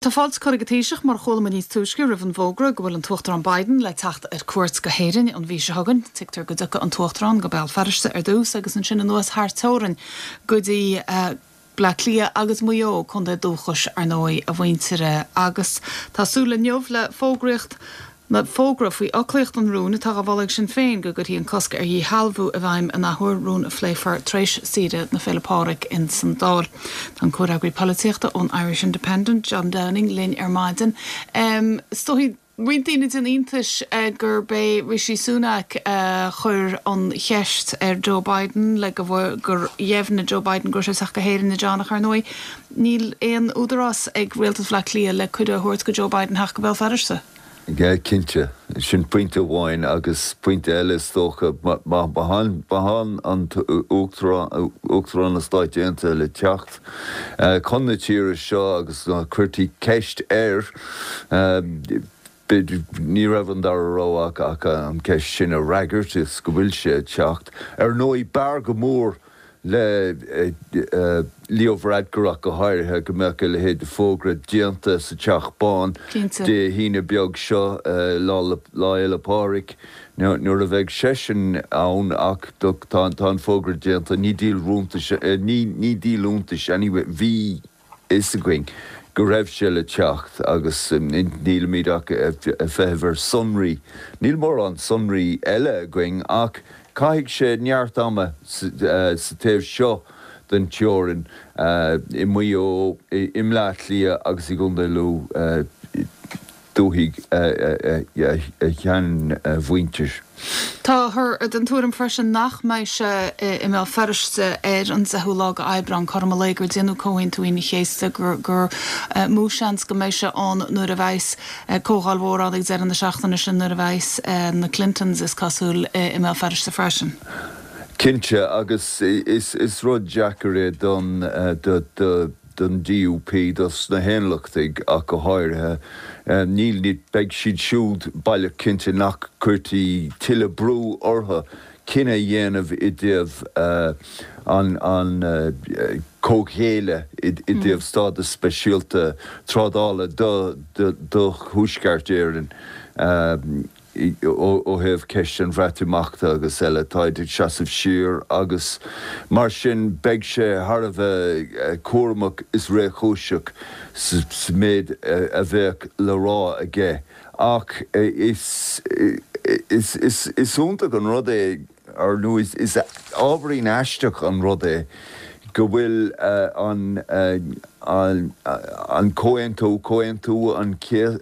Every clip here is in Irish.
Tá fáilte curtha ag an Taoiseach, mar a chuala muid níos túisce, roimh an bhfógra go bhfuil an tUachtarán Biden le teacht ar cuairt go hÉirinn an mhí seo chugainn. Tuigtear go dtiocfaidh an tUachtarán go Béal Feirste ar dtús agus ansin anuas thar teorainn go dtí Bleá Cliath agus Maigh Eo, contae dúchais, ar ndóigh, a mhuintire. Agus tá súil inniu le fógraíocht Nó fógra faoi fhoclaíocht an rúin atá á mholadh ag Sinn Féin go gcuirfí an cosc ar dhíshealbhú i bhfeidhm an athuair, rún a phléifear tar éis saoire na Féile Pádraig ins an Dáil. Tá an comhfhreagraí polaitíochta ón Irish Independent, John Downing, linn ar maidin. Is dóigh roinnt daoine ag déanamh iontais gurb é Rishi Sunak a chuir an cheist ar Joe Biden le go gur dheimhnigh Joe Biden go raibh sé ag teacht go hÉirinn, a John, ach ar ndóigh níl aon údarás ag Rialtas Bhaile Átha Cliath le cuireadh a thabhairt go Joe Biden theacht go Béal Feirste. Cinnte. Sin pointe amháin agus pointe eile is dócha, má tá an tUachtarán na Stáit Aontaithe le teacht chun na tíre seo agus cuirtí ceist air, ní raibh an dara rogha ach an ceist sin a fhreagairt is go bhfuil sé ag teacht. Ar ndóigh, b'fhearr go mór le Leo Varadkar ach go háirithe, go mbeadh a leithéid de fógra déanta sa Teach Bán Dé hAoine beag seo, Lá Fhéile Pádraig, nuair a bheidh seisean ann ach tá an fógra déanta, ní díol iontais, ní díol iontais anyway, bhí fhios againn go raibh sé le teacht agus nílimid ach ag feitheamh ar sonraí. Níl mórán sonraí eile againn ach caithfidh sé neart ama sa taobh seo den teorainn, i Maigh Eo, i mBleá Cliath agus i gContae Lú. dúthaigh a sheanmhuintir. Táthar den tuairim freisin nach mbeidh sé i mBéal Feirste ar an 10ú lá de Aibreán, cothrom an lae gur déanadh Comhaontú Aoine an Chéasta, gur mó seans go mbeidh sé ann nuair a bheas comhdháil mhór ann ag deireadh na seachtaine sin, nuair a bheas na Clintons, is cosúil, i mBéal Feirste freisin. Cinnte, agus is rud deacair é don don DUP, dos na hAonlachtaigh ach go háirithe. Níl, beidh siad siúd baileach cinnte nach gcuirtí tuilleadh brú orthu cinneadh a dhéanamh i dtaobh an comhghéilleadh i dtaobh stádas speisialta trádála do Thuaisceart Éireann. Ó thaobh ceist an Bhreatimeachta agus eile, táid ag seasamh siar agus mar sin beidh sé thar a bheith cúramach is réchúiseach sa méid a bheadh le rá aige. Ach is iontach an rud é Ar ndóigh, is ábhairín aisteach an rud é go bhfuil an comhaontú, Comhaontú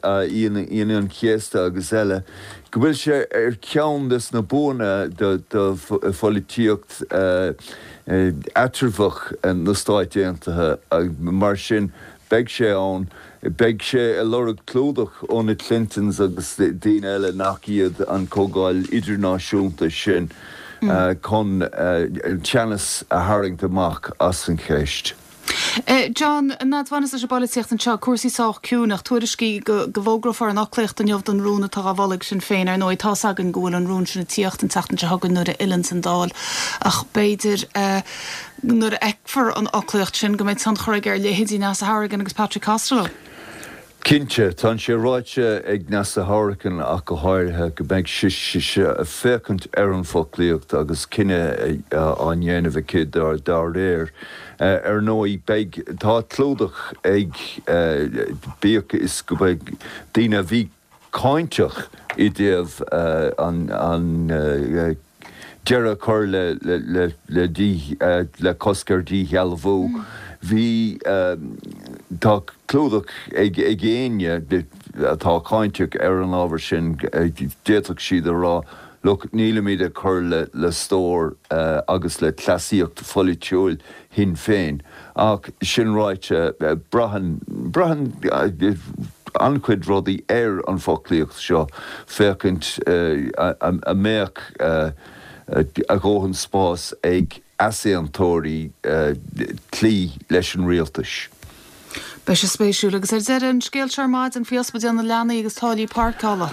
Aoine an Chéasta agus eile, go bhfuil sé ar cheann des na buanna do pholaitíocht eatramhach na Stáit Aontaithe. Mar sin, beidh sé ann. Beidh sé ag lorg clúdach ó na Clintons agus daoine eile nach iad an Comhdháil Idirnáisiúnta sin chun teannas a tharraingt amach as an cheist. John, N'fheadar bhaineas leis an bpolaitíocht anseo, cúrsaí sách ciúin ach tuairiscí go bhfógrófar an fhoclaíocht inniu don rún atá á mholadh ag Sinn Féin. Ar ndóigh, tá's againn go bhfuil an rún sin ag tíocht an tseachtain seo chugainn nuair a fhilleanns an Dáil ach b'fhéidir nuair a fheicfear an fhoclaíocht sin, go mbeidh tionchar aige ar leithéidí Neasa Hourigan agus Patrick Costello. Cinnte, tá sé ráite ag Neasa Hourigan ach go háirithe, go mbeidh sise ag féachaint ar an bhfoclaíocht agus cinneadh á ndéanamh aici dá réir. Ar ndóigh, beidh, tá clúdach ag, bíodh is go mbeidh daoine a bhí cáinteach i dtaobh an deireadh a chur le cosc ar dhíshealbhú. Bhí, tá clúdach ag éinne atá cáinteach ar an ábhar sin, d'fhéadfadh siad a rá, look, nílimid ag cur le stór agus le cleasaíocht pholaitiúil Shinn Féin. Ach sin ráite, braitheann, braitheann an-chuid rudaí ar an bhfoclaíocht seo, féachaint an mbeadh a dhóthain spáis ag easaontóirí cloí leis an rialtas. Beidh sé spéisiúil. Agus ar deireadh, an scéal seo ar maidin faoi ospidéal na leanaí agus táillí páirceála.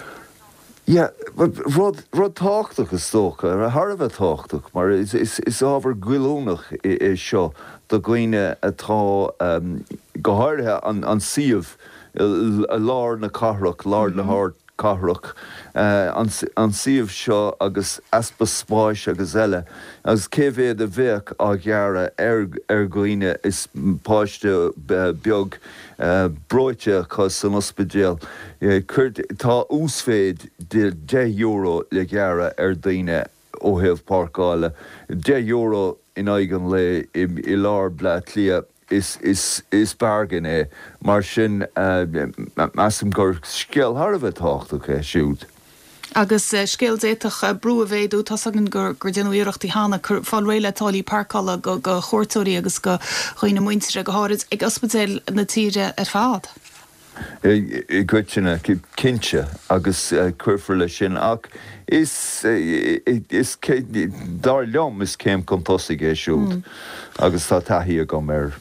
Yeah, rud, rud tábhachtach is dócha, thar a bheith tábhachtach, mar is, is, is ábhar goilliúnach é seo do dhaoine atá, go háirithe an, an suíomh. I lár na cathrach, lár na hardcathrach, an suíomh seo agus easpa spáis agus eile, agus cé mhéad a bheadh á ghearradh ar dhaoine is páiste beag breoite acu san ospidéal. Tá uasmhéid de €10 le gearradh ar daoine ó thaobh páirceála, €10 in aghaidh an lae i lár Bleá Cliath. Is bargain é. Mar sin, measaim gur scéal thar a bheith tábhachtach é siúd. Agus scéal d'fhéadfadh brú a mhéadú, tá's againn gur déanadh iarrachtaí cheana fáil réidh le táillí páirceála do chuairteoirí agus do dhaoine muinteartha, go háirid ag ospidéil na tíre ar fad. I gcoitinne, cinnte, agus cuirfear leis sin, ach is, is, dar liom, is céim chun tosaigh é siúd agus tá taithí agam air.